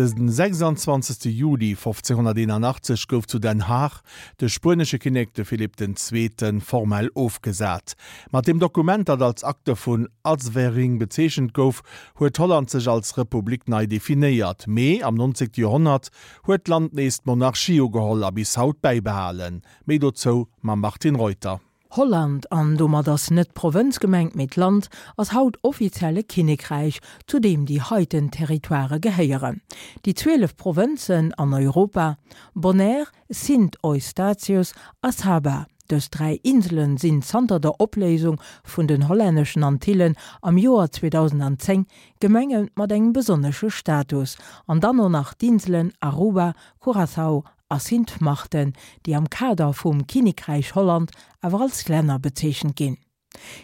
De 26. Juli 1581 gouf zu Den Haag de spuenesche Kinnek, de Philipp den Zweeten, formell ofgesat. Mat deem Dokument, dat als Akte vun Azwering bezeechent gouf, huet Holland sech als Republik nei definéiert. Mee am 19. Joerhonnert huet d'Land nees d'Monarchie ugeholl a bis haut bäibehalen. Méi dozou mam Martine Reuter. Holland, an domat ass net d'Provënz gemengt, mee d'Land, ass haut offiziell e Kinnekräich, zu deem déi heiten Territoirë gehéieren, déi 12 Provënzen an Europa, Bonaire, Sint Eustatius a Saba. Dës dräi Insele sinn zanter der Opléisung vun den hollänneschen Antillen am Joer 2010 Gemenge mat engem besonnesche Status, an dann och nach d'Inselen Aruba, Curaçao a Sint Maarten, déi am Kader vum Kinnekräich Holland awer als Länner bezeechent ginn.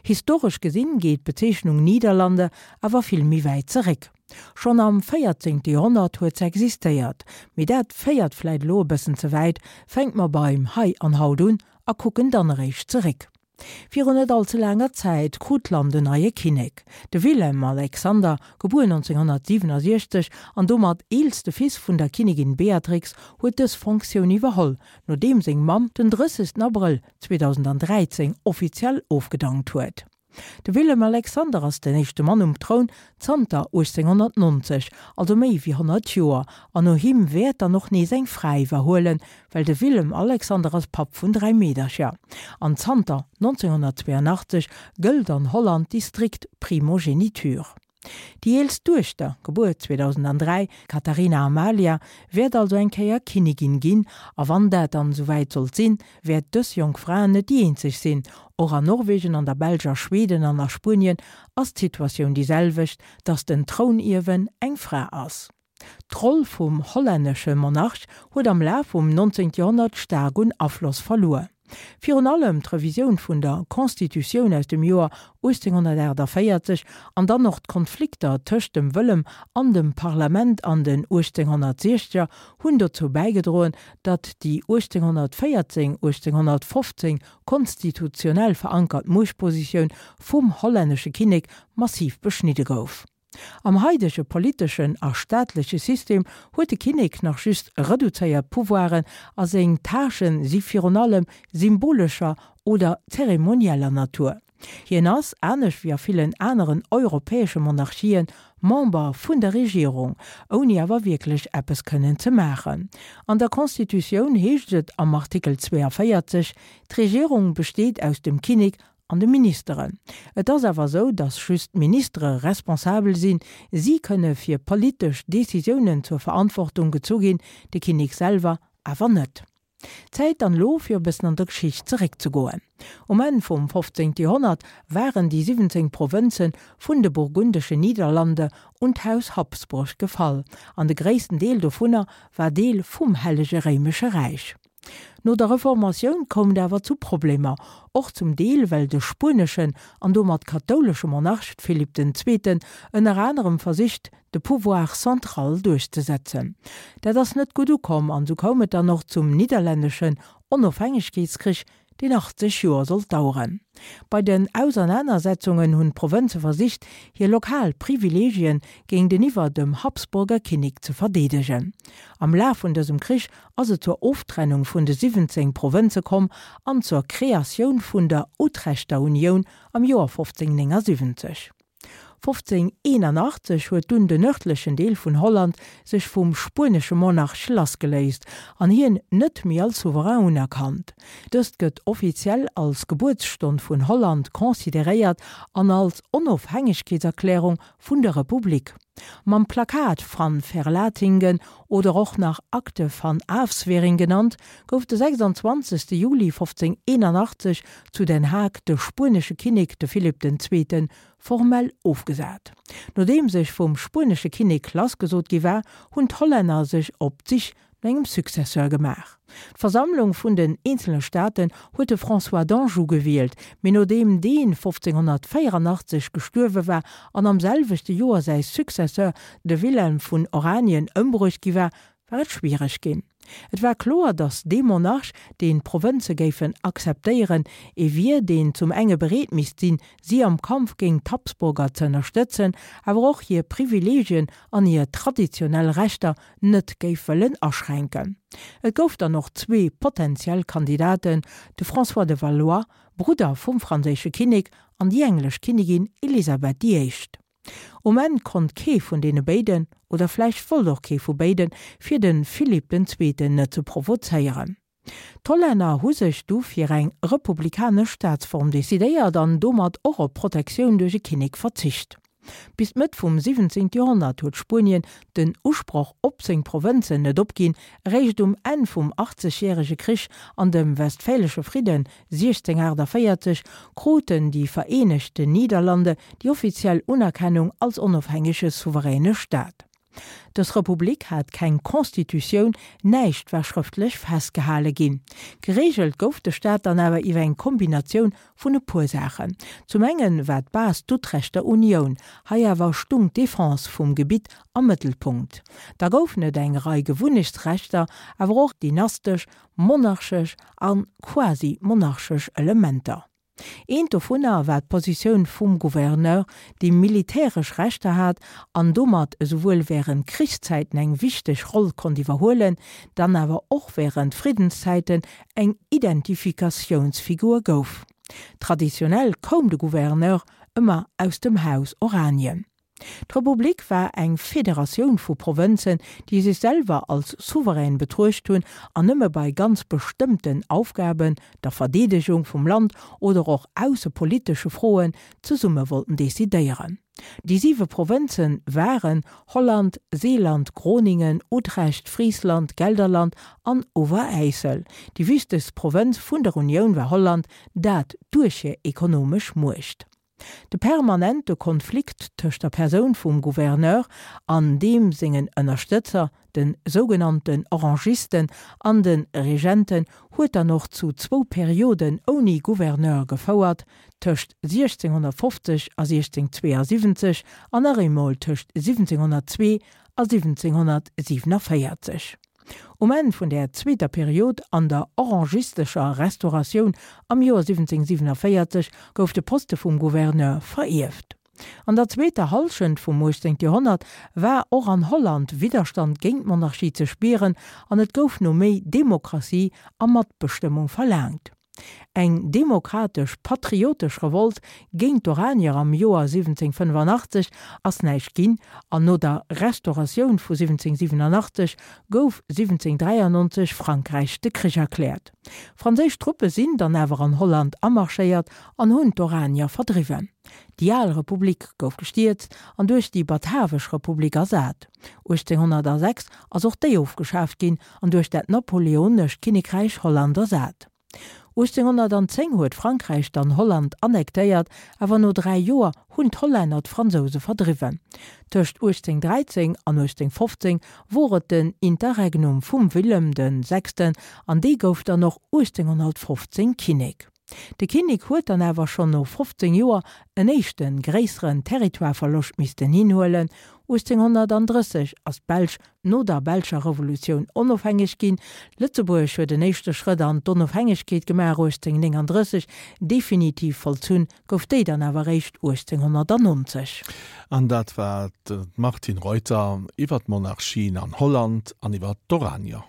Historesch gesinn geet d'Bezeechnung Niederlande awer vill méi wäit zeréck. Schonn am 14. Joerhonnert huet se existéiert. Mee dat féiert vläit elo e bëssen ze wäit, fänke mer beim Hei an Haut un a kucken dann eréischt zeréck. Virun net all ze laanger Zäit krut d'Land en neie Kinnek. De Willem-Alexander, gebuer 1967 an domat eelste Fils vun der Kinnigin Beatrix, huet dës Fonctioun iwwerholl, nodeem seng Mamm den 30 Abrëll 2013 offiziell ofgedankt huet. De Willem-Alexander ass den éischte Mann um Troun zanter 1890, also méi wéi 100 Joer, an no him wäert dann och nees eng Fra iwwerhuelen, well de Willem Alexander ass Papp vun 3 Meedercher an zanter 1982 gëllt an Holland déi strikt Primogeniture. Déi eelst Duechter, gebuer 2003, Catharina Amalia, wäert also eng Kéier Kinnigin ginn a wann dat dann esouwäit sollt sinn, wäert dës jonk Fra net déi eenzeg sinn. Och an Norwegen, an der Belsch, a Schweden an a Spuenien ass d'Situatioun déi selwecht, dass den Trounierwen eng Fra ass. D'Roll vum hollännesche Monarch huet am Laf vum 19. Joerhonnert staark un Afloss verluer. Virun allem d'Revisioun vun der Constitutioun aus dem Joer 1848 an dann och d'Konflikter tëscht dem Wëllem an dem Parlament an den 1860er hunn dozou bäigedroen, datt déi 1814, 1815 konstitutionell verankert Muechtpositioun vum hollännesche Kinnek massiv beschnidde gouf. Am haidege politeschen a staatleche System huet de Kinnek nach just reduzéiert Pouvoiren a seng Tâchen si virun allem symbolescher oder zeremonieller Natur. Hien ass, anescht wéi a villen aneren europäesche Monarchien, Member vun der Regierung, ouni awer wierklech eppes kënnen ze maachen. An der Constitutioun heescht et am Artikel 42, D'Regierung besteet aus dem Kinnek an de Ministeren. Et ass awer esou, datt just d'Ministere responsabel sinn. Si kënne fir politesch Decisiounen zur Verantwortung gezu ginn, de Kinnek selwer awer net. Zäit dann elo, fir e bëssen an der Geschicht zeréckzegoen. Um Enn vum 15. Joerhonnert waren déi 17 Provënze vun de burgundeschen Niederlande un d'Haus Habsburg gefall, an de gréissten Deel dovunner war Deel vum Hellege Réimesche Räich. No der Reformatioun koum et awer zu Problemer, och zum Deel well de spueneschen an domat kathoulesche Monarch Philipp den Zweeten ënner anerem versicht de Pouvoir central duerchzesetzen. Dat ass net gutt ukomm an sou koum et dann och zum nidderlänneschen Onofhängegkeetskrich, deen 80 Joer sollt daueren. Bei den Ausernanersetzungen hunn d'Provënze versicht, hir lokal Privileegien géinteniwwer dem Habsburger Kinnek ze verdeedegen. Am Laf vun dësem Krich ass et zur Oftrennung vun de 17 Provënze komm an zur Kreatioun vun der Utrechter Unioun am Joer 1579. 1581 huet dunn den nërdlechen Deel vun Holland sech vum spuenesche Monarch lassgeléist an hien net méi als Souverain unerkannt. Dëst gëtt offiziell als Gebuertsstonn vun Holland consideréiert an als Onofhängegkeetserklärung vun der Republik. Mam Plakat van Verlatinghen oder och nach Akte van Afswering genannt, gouf de 26. Juli 1581 zu Den Haag de spuenesche Kinnek, de Philipp den Zweeten, formell ofgesat. Nodeem sech vum spuenesche Kinnek lassgesot gi war, hunn d'Hollänner sech op d'Sich no engem Successeur gemaach. D'Versammlung vun den eenzele Staaten huet de François d'Anjou gewielt, mee nodeem dee 1584 gestuerwe war an am selwechte Joer säi Successeur, de Wilhelm vun Oranien, ëmbruecht gi war, war et schwiereg ginn. Et war kloer, datt dee Monarch, deen d'Provënze géifen akzeptéieren, ee wier, deen zum enge bereet misst sinn, si am Kampf géint d'Habsburger ze ënnerstëtzen, awer och hir Privileegien an hir traditionell Rechter net géif wëllen aschränken. Et gouf dann och zwee potentiell Kandidaten, de François de Valois, Brudder vum franséische Kinnek, an déi englesch Kinnigin Elisabeth déi Éischt. Um Enn konnt kee vun deene béiden, oder vläicht wollt och kee vu béiden, fir de Philipp den Zweeten net ze provozéieren. D'Hollänner hu sech du fir eng republikanesch Staatsform decidéiert an domat och op Protektioun duerch e Kinnek verzicht. Bis d'Mëtt vum 17. Joerhonnert huet Spuenien den Usproch op seng Provënzen net opginn, eréischt um Enn vum Achtzegjärege Krich an dem Westfälesche Fridden 1648 kruten déi Vereenegte Niederlande déi offiziell Unerkennung als onofhängege souveräne Staat. Dës Republik hat keng Constitutioun, näischt war schrëftlech festgehale ginn. Gereegelt gouf de Staat dann awer iwwer eng Kombinatioun vun e puer Saachen. Zum engen war d'Base d'Utrechter Unioun, hei awer stung d'Defense vum Gebitt am Mëttelpunkt. Da goufen et eng Rei Gewunnechtsrechter, awer och dynastesch, monarchesch a quasi-monarchesch Elementer. Eent dovunner war d'Positioun vum Gouverneur, dee militäresch Rechter hat an domat esouwuel wärend Krichszäiten eng wichteg Roll konnt iwwerhuelen, dann awer och wärend Friddenszäiten eng Identifikatiounsfigur gouf. Traditionell koum de Gouverneur ëmmer aus dem Haus Oranien. D'Republik war eng Federatioun vu Provënzen, déi sech selwer als souverän betruecht hunn an nëmme bei ganz bestëmmten Aufgaben, der Verdeedegung vum Land oder och aussepolitesche Froen, zesumme wollten decidéieren. Déi siwe Provënze waren, Holland, Seeland, Groningen, Utrecht, Friesland, Gelderland an Overijssel. Déi wichtegst Provënz vun der Unioun war Holland, dat duerch hir ekonomesch Muecht. De permanente Konflikt tëscht der Persoun vum Gouverneur an deem sengen Ënnerstëtzer, de sougenannten Orangisten an de Regenten, huet dann och zu zwou Perioden ouni Gouverneur gefouert, tëscht 1650 a 1672 an nach eemol tëscht 1702 a 1747. Um Enn vun där zweeter Period an der orangistescher Restauratioun am Joer 1747 gouf de Poste vum Gouverneur verierft. An der zweeter Hallschent vum 18. Joerhonnert war och an Holland Widderstand géint d'Monarchie ze spieren an et gouf no méi Demokratie a Matbestëmmung verlaangt. Eng demokratesch-patriotesch Revolt géint d'Oranier am Joer 1785 ass näischt ginn an no der Restauratioun vu 1787 gouf 1793 Frankräich de Krich erkläert. Franséisch Truppe sinn dann awer an Holland amarschéiert an hunn d'Oranier verdriwwen. Déi al Republik gouf gestierzt an duerch déi Batavesch Republik ersat. 1806 ass och déi ofgeschaaft ginn an duerch dat napoleonescht Kinnekräich Holland ersat. 1810 huet Frankräich dann Holland annektéiert, awer no 3 Joer hunn d'Hollänner d'Fransouse verdriwwen. Tëscht 1813 an 1815 wor et den Interregnum vum Willem de Sechsten an dee gouf dann och 1815 Kinnek. De Kinnek huet dann awer schonn no 15 Joer en éischte gréisseren Territoireverloscht missten hinhuelen, 1830 ass d'Belsch no der belscher Revolutioun onofhängeg ginn. Lëtzebuerg huet en éischte Schrëtt an d'Onofhängegkeet gemaach 1839, definitiv vollzunn gouf déi dann awer eréischt 1890. An dat war d'Martine Reuter iwwer d'Monarchien an Holland an iwwer d'Oranier.